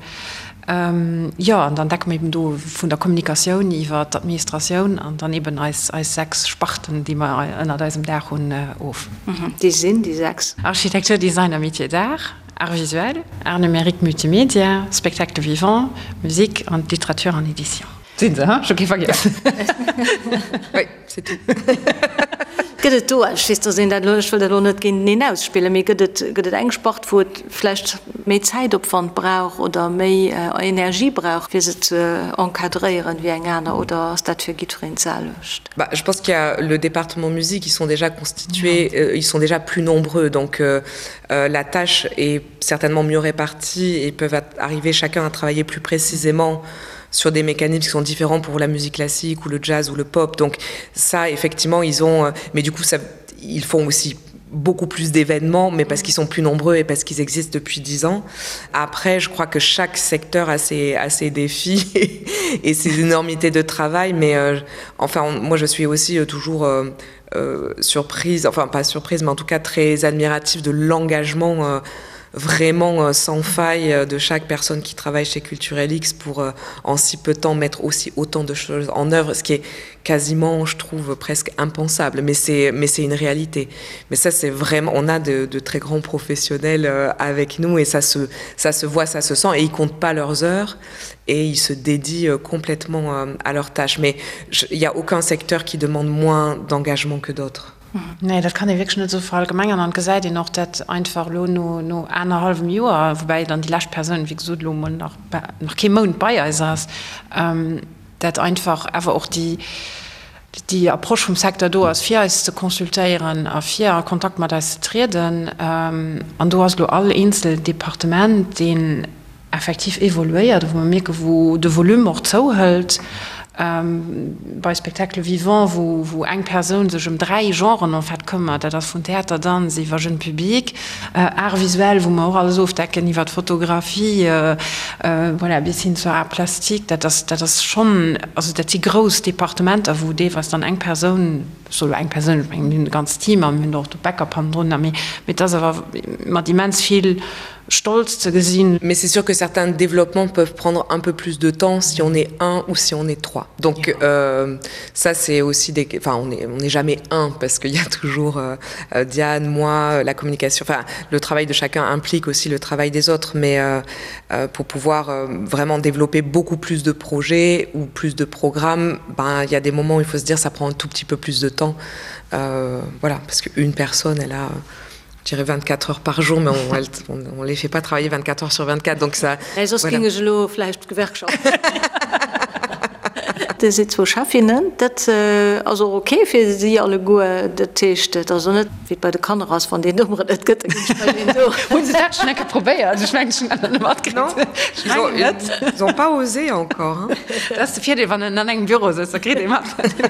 Jo, an dann decke mer eben do vun der Kommunikatioun iwwer d'Administratioun an dann eben eis 6 Sparten, déi mer ënnert eisem Daach hunn, of. Déi sinn déi 6? Architecture, Design a Métiers d'art. Arts visuels, Arts numériques, Multimedia, Spectacle vivant, Musique an Littérature an Édition. Sinn se, ech hu kee vergiess. Oui, c'est tout. Gëtt et do, ech weess, dass een dat elo, ech wëll dat elo net géinteneen ausspillen, mee gëtt et, gëtt et eng Spart, wou et vläicht méi Zäitopwand brauch oder méi Energie brauch, fir se ze encadréieren, wéi eng aner, oder ass dat fir jiddwereen d'selwecht? Bah, je pense qu'il y a le département musique, ils sont déjà constitués, euh, ils sont déjà plus nombreux, donc euh, euh, la tâche est certainement mieux répartie et peuvent arriver chacun à travailler plus précisément sur des mécanismes qui sont différents pour la musique classique ou le jazz ou le pop. Donc ça, effectivement, ils ont... Euh, mais du coup, ça, ils font aussi beaucoup plus d'événements, mais parce qu'ils sont plus nombreux et parce qu'ils existent depuis dix ans. Après, je crois que chaque secteur a ses, a ses défis et, et ses énormités de travail, mais euh, enfin, on, moi, je suis aussi euh, toujours euh, euh, surprise, enfin pas surprise, mais en tout cas très admirative de l'engagement euh, vraiment euh, sans faille euh, de chaque personne qui travaille chez Culturelx pour euh, en si peu de temps mettre aussi autant de choses en œuvre, ce qui est quasiment, je trouve, presque impensable, mais c'est mais c'est une réalité. Mais ça c'est vraiment on a de, de très grands professionnels euh, avec nous et ça se, ça se voit, ça se sent et ils comptent pas leurs heures et ils se dédient euh, complètement euh, à leurs tâches. Mais il n'y a aucun secteur qui demande moins d'engagement que d'autres. Nee, dat kann ee wierklech net esou verallgemengern. An et gesäit een och, dat einfach elo no, no anerhallwem Joer, woubäi dann déi lescht Persoun, wéi gesot, elo emol nach, nach kee Mount bei eis ass, dat einfach awer och déi, déi Approche vum Secteur do ass, fir eis ze consultéieren a fir a Kontakt mat eis ze trieden. An do ass elo all eenzel Departement, deen effektiv evoluéiert, wou mer mierken, wou de Volume och zouhëlt. Bei Spectacle vivant, wou eng Persoun sech ëm 3 Genren en fait këmmert, dat ass vun Theater, Danz iwwer Jeune public, Art visuel, wou mer och alles ofdecken, iwwer d'Fotografie, voilà, bis hin zur Art plastique, dat ass, dat ass schonn, also dat si grouss Departementer, wou deelweis dann eng Persoun, ech soe lo eng Persoun, ech mengen mir hunn e ganzt Team a mir hunn och de Backup hannendrun, mee et ass awer mat immens vill Stolz ze gesinn. Mais c'est sûr que certains développements peuvent prendre un peu plus de temps si on est un ou si on est trois. Donc ja. euh, ça c'est aussi des enfin on est on n'est jamais un parce qu'il y a toujours euh, euh Diane, moi, la communication enfin le travail de chacun implique aussi le travail des autres mais euh, euh, pour pouvoir euh, vraiment développer beaucoup plus de projets ou plus de programmes, ben il y a des moments où il faut se dire ça prend un tout petit peu plus de temps euh, voilà parce qu'une personne elle a euh, je dirais 24 heures par jour mais on, elle, on, on les fait pas travailler 24 heures sur 24 donc ça nee, voilà. Dir sidd zwou Chefinnen, dat ass och ok fir si alleguer. Dat heescht, et ass och net wéi et bei de Kanner ass, wann deen Nummeren net gëtt, da ginn ech bei deen do. Hunn se dat schonn eng Kéier probéiert? Ech mengen, ech hunn dat nach net matkritt. Ech mengen net. Ils ont pas osé encore, hein. Dat ass de Virdeel, wann een an engem Büro sëtzt, da kritt ee mat.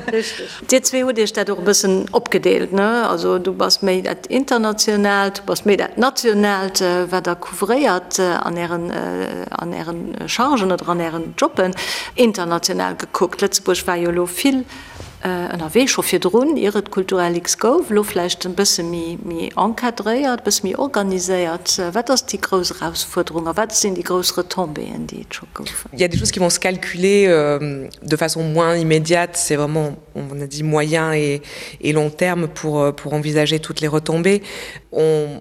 Richteg. Dir zwee hutt Iech dat och e bëssen opgedeelt, ne? Also du bass méi dat Internationaalt, du bass méi dat Nationaalt, wat Der couvréiert an Ären, an Ären Chargen oder an Ären Jobben. International gekuckt, Lëtzebuerg war jo elo vill ënnerwee scho virdrun, ier et Culturalix gouf, elo vläicht e bësse méi, méi encadréiert, e bësse méi organiséiert. Wat ass déi grouss Erausfuerderung a wat sinn déi grouss Retombéeën, déi et scho goufen? Il y a des choses qui vont se calculer euh, de façon moins immédiate, c'est vraiment on a dit moyen et, et long terme pour, euh, pour envisager toutes les retombées. On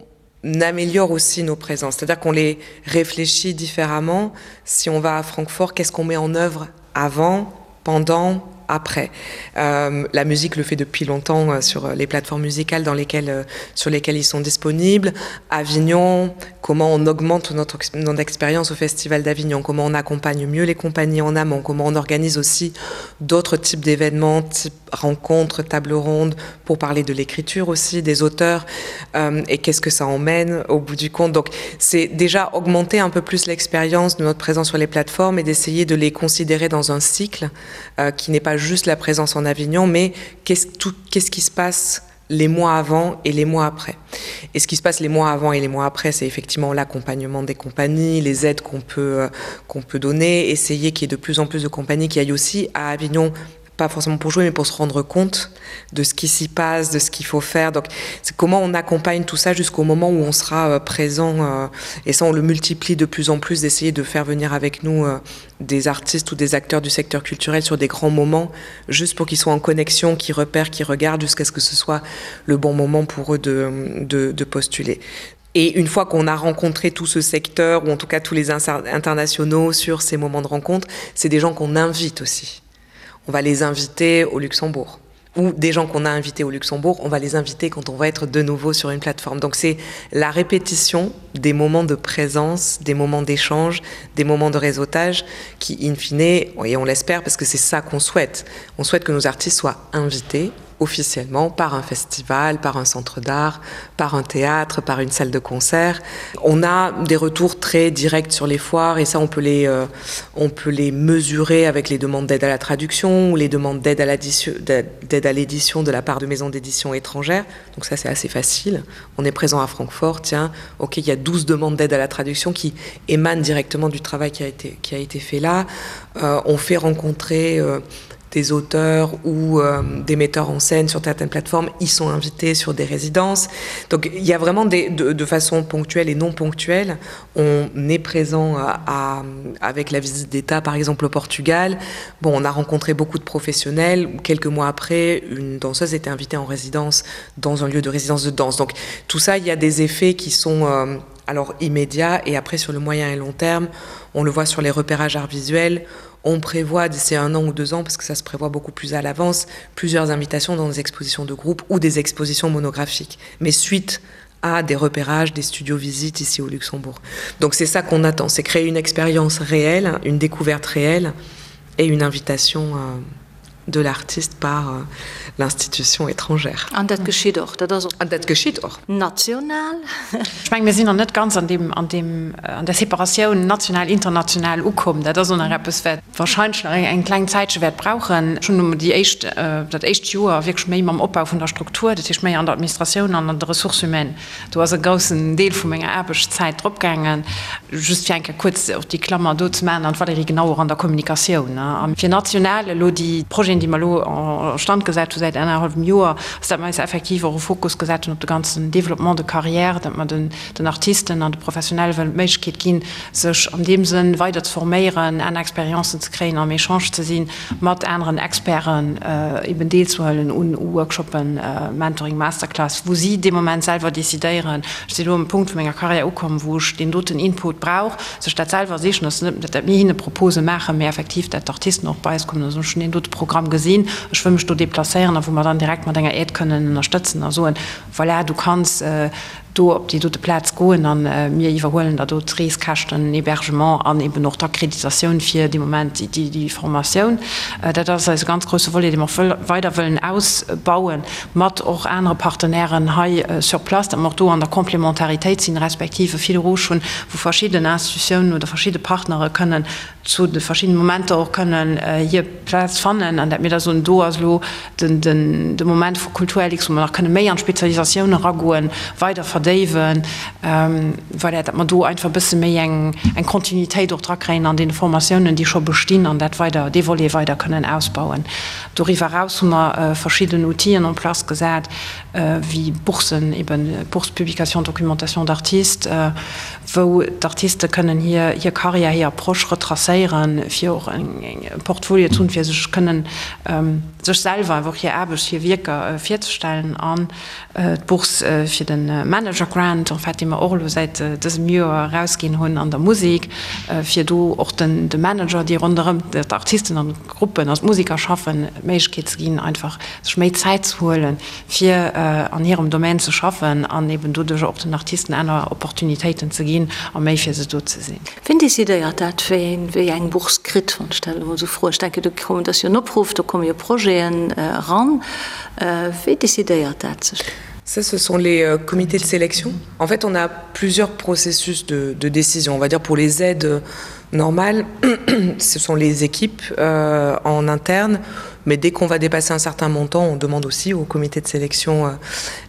améliore aussi nos présences, c'est-à-dire qu'on les réfléchit différemment. Si on va à Francfort, qu'est-ce qu'on met en œuvre avant, pendant, après. Euh, la musique le fait depuis longtemps euh, sur euh, les plateformes musicales dans lesquelles, euh, sur lesquelles ils sont disponibles. Avignon, comment on augmente notre, notre expérience au Festival d'Avignon, comment on accompagne mieux les compagnies en amont, comment on organise aussi d'autres types d'événements, type rencontres, tables rondes, pour parler de l'écriture aussi, des auteurs euh, et qu'est-ce que ça emmène au bout du compte. Donc c'est déjà augmenter un peu plus l'expérience de notre présence sur les plateformes et d'essayer de les considérer dans un cycle euh, qui n'est pas juste la présence en Avignon, mais qu'est-ce qu'est-ce qui se passe les mois avant et les mois après. Et ce qui se passe les mois avant et les mois après, c'est effectivement l'accompagnement des compagnies, les aides qu'on peut, euh, qu'on peut donner, essayer qu'il y ait de plus en plus de compagnies qui aillent aussi à Avignon pas forcément pour jouer mais pour se rendre compte de ce qui s'y passe de ce qu'il faut faire donc c'est comment on accompagne tout ça jusqu'au moment où on sera euh, présent euh, et ça on le multiplie de plus en plus d'essayer de faire venir avec nous euh, des artistes ou des acteurs du secteur culturel sur des grands moments juste pour qu'ils soient en connexion qui repèrent qui regardent jusqu'à ce que ce soit le bon moment pour eux de, de, de postuler et une fois qu'on a rencontré tout ce secteur ou en tout cas tous les internationaux sur ces moments de rencontre c'est des gens qu'on invite aussi on va les inviter au Luxembourg ou des gens qu'on a invités au Luxembourg, on va les inviter quand on va être de nouveau sur une plateforme. Donc c'est la répétition des moments de présence, des moments d'échange, des moments de réseautage qui in fine et on l'espère parce que c'est ça qu'on souhaite. On souhaite que nos artistes soient invités officiellement par un festival, par un centre d'art, par un théâtre, par une salle de concert. On a des retours très directs sur les foires et ça on peut les, euh, on peut les mesurer avec les demandes d'aide à la traduction ou les demandes d'aide à l'édition de la part de maisons d'édition étrangères. Donc ça c'est assez facile. On est présent à Francfort, tiens, ok, il y a 12 demandes d'aide à la traduction qui émanent directement du travail qui a été, qui a été fait là. Euh, on fait rencontrer euh, des auteurs ou euh, des metteurs en scène sur certaines plateformes, ils sont invités sur des résidences. Donc il y a vraiment des, de, de façon ponctuelle et non ponctuelle, on est présent à, à, avec la visite d'État par exemple au Portugal. Bon, on a rencontré beaucoup de professionnels. Quelques mois après, une danseuse était invitée en résidence dans un lieu de résidence de danse. Donc tout ça, il y a des effets qui sont euh, alors immédiats et après sur le moyen et long terme, on le voit sur les repérages arts visuels, on prévoit d'ici un an ou deux ans parce que ça se prévoit beaucoup plus à l'avance plusieurs invitations dans des expositions de groupe ou des expositions monographiques mais suite à des repérages des studios visites ici au Luxembourg donc c'est ça qu'on attend c'est créer une expérience réelle une découverte réelle et une invitation euh, de l'artiste. par euh, l'institution étrangère. An dat geschitt och, dat ass och. An dat geschitt och. National. Ech mengen, mir sinn nach net ganz an deem, an deem, an där Separatioun national, international ukomm. Dat ass och nach eppes, wat wahrscheinlech nach eng kleng Zäitche wäert brauchen. Ech hunn elo déi éischt, dat éischt Joer wierklech méi mam Opbau vun der Struktur, dat heescht méi an der Administratioun an an de Ressources humaines, Do ass e groussen Deel vu menger Aarbechtszäit drop gaangen. Just fir eng Kéier kuerz och déi Klammer do ze maachen, an d'Valérie, genau, och an der Kommunikatioun. A fir national elo déi Projeten, déi mer elo en stand gesat hu säit anerhallwem Joer, ass, datt mer eis effektiv och e Fokus gesat hunn op de ganzen Développement de carrière, datt mer den Artisten an de Professionelle wëllen d'Méiglechkeet ginn, sech an deem Sënn weider ze forméieren, aner Expériencen ze kréien, am Echange ze sinn mat aneren Experten, eben deelzehuelen un Workshoppen, Mentoring, Masterclass, wou si dee Moment selwer decidéieren, ech sinn elo um Punkt vu menger Karriär ukomm, wou ech deen doten Input brauch, sech dat selwer sichen. Ass net, dat mir hinne Propose maachen, mä effektiv, dat d'Artisten och bei eis kommen a soen, ech hunn deen dote Programm gesinn, ech wëll mech do deplacéieren, a wou mer dann direkt mat enger Aide kënnen ënnerstëtzen a soen, voilà, du kanns do op déi dote Plaz goen a mir iwwerhuelen der do d'Reeskäschten, den Hébergement an eben och d'Akkreditatioun fir dee Moment déi Formatioun. Dat ass eise ganz grousse Volet, dee mer och weider wëllen ausbauen, mat och anere Partenairen hei sur place, datt mer och do an der Complémentaritéit sinn, respektiv e Fil rouge hunn, wou verschidden Institutiounen oder verschidde Partnere kënnen zu de verschiddene Momenter och kënnen hir Plaz fannen an dat mir da soen, do ass elo de Moment vu Kulturlux, wou mer nach kënne méi an d'Spezialisatioun eragoen, weider verdéiwen, voilà, datt mer do einfach e bësse méi eng Kontinuitéit och drakréien an deene Formatiounen, déi scho bestinn an dat weider, dee Volet weider kënnen ausbauen. Doriwwer eraus hu mer verschidden Outiller en place gesat, wéi Boursen, eben d'Bourse Publication Documentation d'artistes, wou d'Artiste kënnen hir hir Karriär, hir Approche retracéieren, fir och e Portfolio ze hunn, fir sech kënnen sech selwer einfach och hir Aarbecht, hir Wierker virzestellen. An d'Bourse fir de Manager Grant, en fait, dee mer och elo säit dësem Joer erausginn hunn an der Musek, fir do och den de Manager, déi ronderëm d'Artisten an d'Gruppen, also d'Museker schaffen, d'Méiglechkeet ze ginn, einfach sech méi Zäit ze huelen, fir an hirem Domaine ze schaffen an eben doduercher och den Artisten aner Opportunitéiten ze ginn a méi fir se do ze sinn. Wien decidéiert dat, wien wéi eng Bourse kritt, wann ech dat elo mol esou froen? Ech denken, do kommen, dat ass jo en Opruff, do komme jo Projeten eran. Wéi decidéiert dat sech? Ça, ce sont les euh, comités de sélection. En fait, on a plusieurs processus de, de décision. On va dire pour les aides normales, ce sont les équipes euh, en interne Mais dès qu'on va dépasser un certain montant, on demande aussi au comité de sélection euh,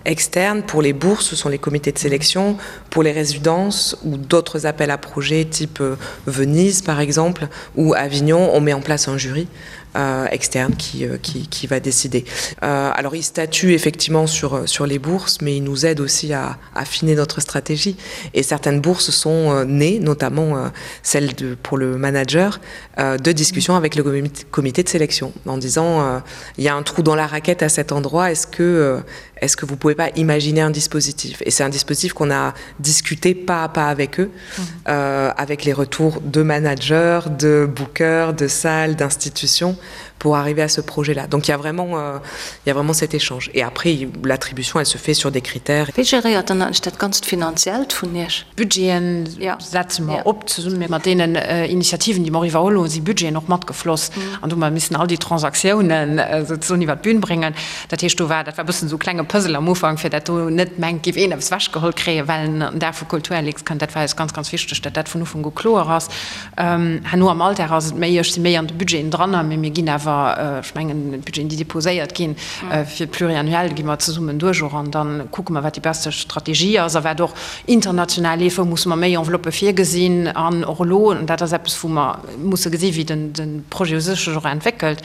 externe. Pour les bourses, ce sont les comités de sélection. Pour les résidences ou d'autres appels à projets type euh, Venise par exemple ou Avignon, on met en place un jury euh, externe qui, euh, qui, qui va décider. Euh, alors il statue effectivement sur, euh, sur les bourses, mais il nous aide aussi à affiner notre stratégie. Et certaines bourses sont euh, nées, notamment euh, celle de, pour le manager, euh, de discussion avec le comité de sélection en disant euh, il y a un trou dans la raquette à cet endroit, est-ce que, euh, est-ce que vous pouvez pas imaginer un dispositif Et c'est un dispositif qu'on a discuté pas à pas avec eux, mmh. euh, avec les retours de managers, de bookers, de salles, d'institutions pour arriver à ce projet là. Donc il y a vraiment, euh, il y a vraiment cet échange. Et après l'attribution elle se fait sur des critères. Wéi geréiert dann eigentlech dat ganzt Finanziellt vun Iech? Budgeten setze mer op zesumme mat deenen Initiativen, déi mer och iwwerholl hunn, si Budgeten och matgefloss an do hu mer missen all déi Transaktiounen souzesoen iwwert d'Bün bréngen. Dat heescht, do war, dat war e bëssen esou e klenge Puzzle am Ufank, fir dat do net mengt, géif een eppes ewechgeholl kréien, well en an den Dag vu Kulturlux kënnt. Dat war eis ganz, ganz wichteg, datt dat vun Ufank u kloer ass. Herno am Alldag ass et méi, ech si méi an de Budgeten dran, mee mir ginn awer, ech mengen, d'Budgeten, déi déposéiert ginn fir d'Pluriannuel, gi mer zesummen duerch och an da kucke mer, wat déi beste Strategie ass a wat och international leeft, wou musse mer méi Enveloppë virgesinn. An och elo, an dat ass eppes, wou mer musse gesi wéi de Projet u sech sech och entwéckelt,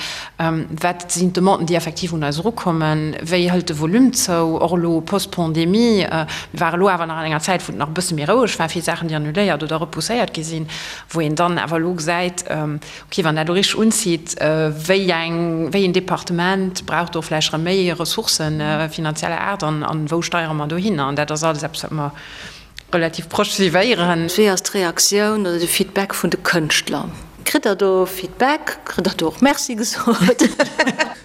wat sinn d'Demanden, déi effektiv un eis erukommen, wéi hëlt de Volume zou, och elo post-Pandemie. Mir ware elo awer nach an enger Zäit, wou et nach e bësse méi roueg war, vill Saachen, déi annuléiert oder repousséiert gi sinn, wou een dann awer elo gesäit, okay, wann dat elo richteg unzitt, wéi eng, wéi een Departement brauch do vläicht erëm méi Ressourcen finanzieller Aart an wou steiere mer dohinner? An dat ass alles eppes, wat mer relativ proche suivéieren. Wéi ass d'Reaktioun oder de Feedback vun de Kënschtler? Kritt der do Feedback? Kritt der do och Merci gesot?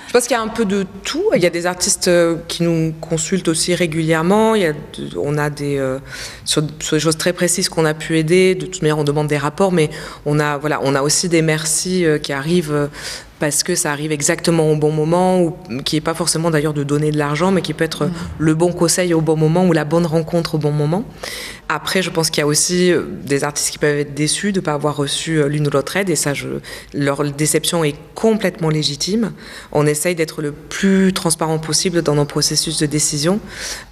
Je pense qu'il y a un peu de tout. Il y a des artistes euh, qui nous consultent aussi régulièrement. Il y a, on a des, euh, sur, sur des choses très précises qu'on a pu aider. De toute manière, on demande des rapports, mais on a, voilà, on a aussi des merci euh, qui arrivent euh, parce que ça arrive exactement au bon moment ou qui est pas forcément d'ailleurs de donner de l'argent mais qui peut être mmh. le bon conseil au bon moment ou la bonne rencontre au bon moment. Après je pense qu'il y a aussi euh, des artistes qui peuvent être déçus de pas avoir reçu euh, l'une ou l'autre aide et ça je leur déception est complètement légitime. On essaye d'être le plus transparent possible dans nos processus de décision.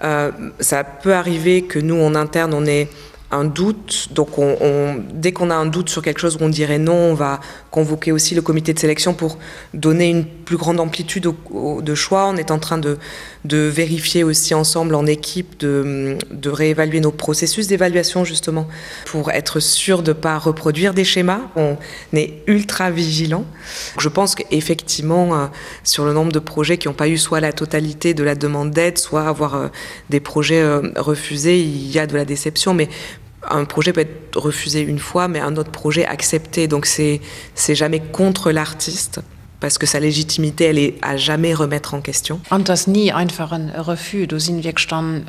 Euh, ça peut arriver que nous en interne on est un doute donc on, on, dès qu'on a un doute sur quelque chose où on dirait non on va convoquer aussi le comité de sélection pour donner une plus grande amplitude au, au, de choix on est en train de, de vérifier aussi ensemble en équipe de, de réévaluer nos processus d'évaluation justement pour être sûr de pas reproduire des schémas on est ultra vigilant je pense qu'effectivement euh, sur le nombre de projets qui n'ont pas eu soit la totalité de la demande d'aide soit avoir euh, des projets euh, refusés il y a de la déception mais un projet peut être refusé une fois mais un autre projet accepté donc c'est c'est jamais contre l'artiste parce que sa légitimité elle est à jamais remettre en question. An et ass ni einfach en Refus, do sinn wierklech dann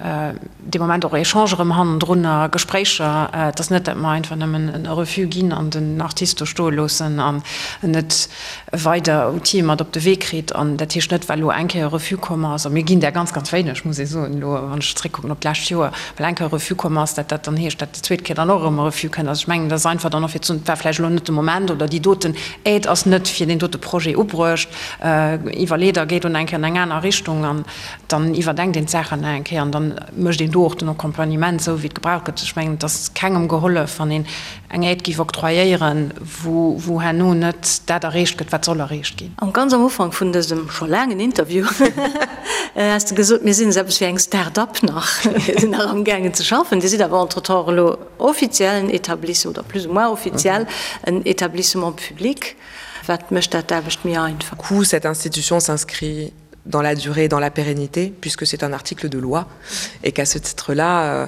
dee Moment och Echangen erëm hannendrun a Gespréicher. Et ass net, dat mer einfach nëmmen en Refus ginn an den Artist do stoe loossen an en net weider Outile mat op de Wee kritt. An dat heescht net, well elo eng Kéier e Refus komm ass, a mir ginn där ganz, ganz wéineg, muss ee soen, elo wann ech zréckkucken op d'lescht Joer, well eng Kéier e Refus komm ass, dat dat dann heescht, dat déi zweet Kéier dann och erëm e Refus kënnt. Also ech mengen, dat ass einfach dann och fir ze soen, et war vläicht elo net de Moment oder déi doten Aide ass net fir deen dote Projet ubruecht. Iwwerleet a geet un eng Kéier an eng aner Richtung an dann iwwerdenkt een d'Saachen nach eng Kéier an dann mécht een do och den Accompagnement esou, wéi et gebraucht gëtt. Ech mengen, et ass kengem gehollef, wann een eng Aide géif octroyéieren, wou, wou herno net dat erreecht gëtt, wat soll erreecht ginn. Am ganz am Ufank vun dësem scho laangen Interview has de gesot, mir sinn esou eppes wéi eng Start-up nach, mir sinn nach amgaangen ze schaffen. Dir sidd awer entretemps elo offiziell en Etablissement, oder plus ou moins offiziell en Etablissement public. Wat mécht dat d'Aarbecht méi einfach? Coup, cette institution s'inscrit dans la durée, dans la pérennité, puisque c'est un article de loi et qu'à ce titre-là, euh,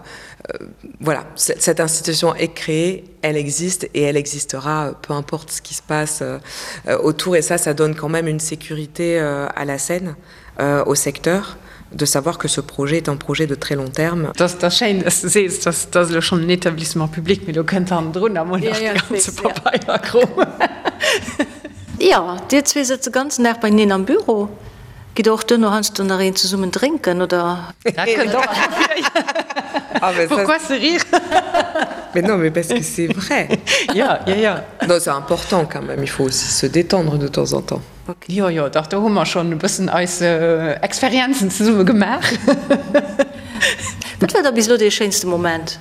euh, voilà, cette institution est créée, elle existe et elle existera, euh, peu importe ce qui se passe euh, euh, autour et ça, ça donne quand même une sécurité euh, à la scène, euh, au secteur de savoir que ce projet est un projet de très long terme. Dat ass schéin, dass de sees, dass dat ass elo schonn en Établissement public, mee do kënnt hannendrun emol nach de ganze Pabeierkrom. Jo, dir zwee sëtzt de ganzen Dag beieneen am Büro. Gitt der och duerno heiansdo nach een zesummen drénken, oder? Dat kënnt och nach vir. Pourquoi ce rire? Mais non, mais parce que c'est vrai. Jo, jo, jo. Non, c'est important quand même, il faut aussi se détendre de temps en temps. Jo, jo, dach, do hu mer schonn e bëssen eis Experienzen zesumme gemaach. Wat war da bis elo dee schéinste Moment?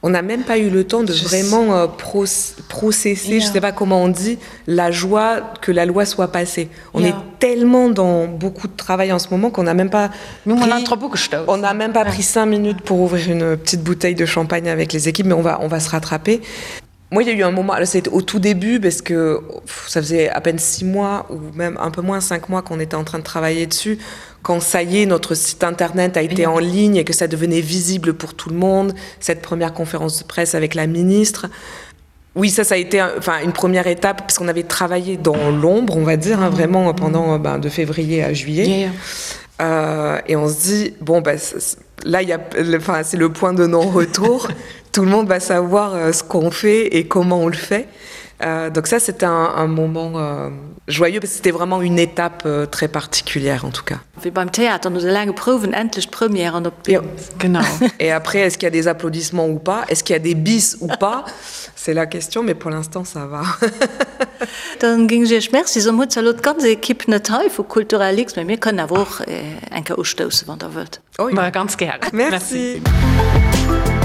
On n'a même pas eu le temps de vraiment processer, je sais pas comment on dit, la joie que la loi soit passée. On est tellement dans beaucoup de travail en ce moment qu'on n'a même pas pris, on n'a même pas pris cinq minutes pour ouvrir une petite bouteille de champagne avec les équipes, mais on va, on va se rattraper. Moi, il y a eu un moment, c'était au tout début parce que pff, ça faisait à peine six mois ou même un peu moins cinq mois qu'on était en train de travailler dessus. Quand ça y est, notre site internet a été en ligne et que ça devenait visible pour tout le monde, cette première conférence de presse avec la ministre. Oui, ça, ça a été enfin, une première étape parce qu'on avait travaillé dans l'ombre, on va dire, hein, vraiment pendant ben, de février à juillet. Yeah, yeah. Euh, et on se dit, bon, ben, là, il y a, enfin, c'est le point de non-retour. Tout le monde va savoir euh, ce qu'on fait et comment on le fait. Euh, donc ça, c'était un, un moment euh, joyeux parce que c'était vraiment une étape euh, très particulière en tout cas. Wéi beim Theater, no de laange Prouwen endlech d'Première an op d'Bün. Genau. Et après, est-ce qu'il y a des applaudissements ou pas? Est-ce qu'il y a des bis ou pas? C'est la question, mais pour l'instant ça va. Dann géing ech Iech Merci soen. Hutt zwar elo d'ganz Equipe net hei vu Culturalix, mä mir kënnen awer och eng Kéier ustoussen, wann Der wëllt. Oh jo. Ganz gären. Merci. Merci.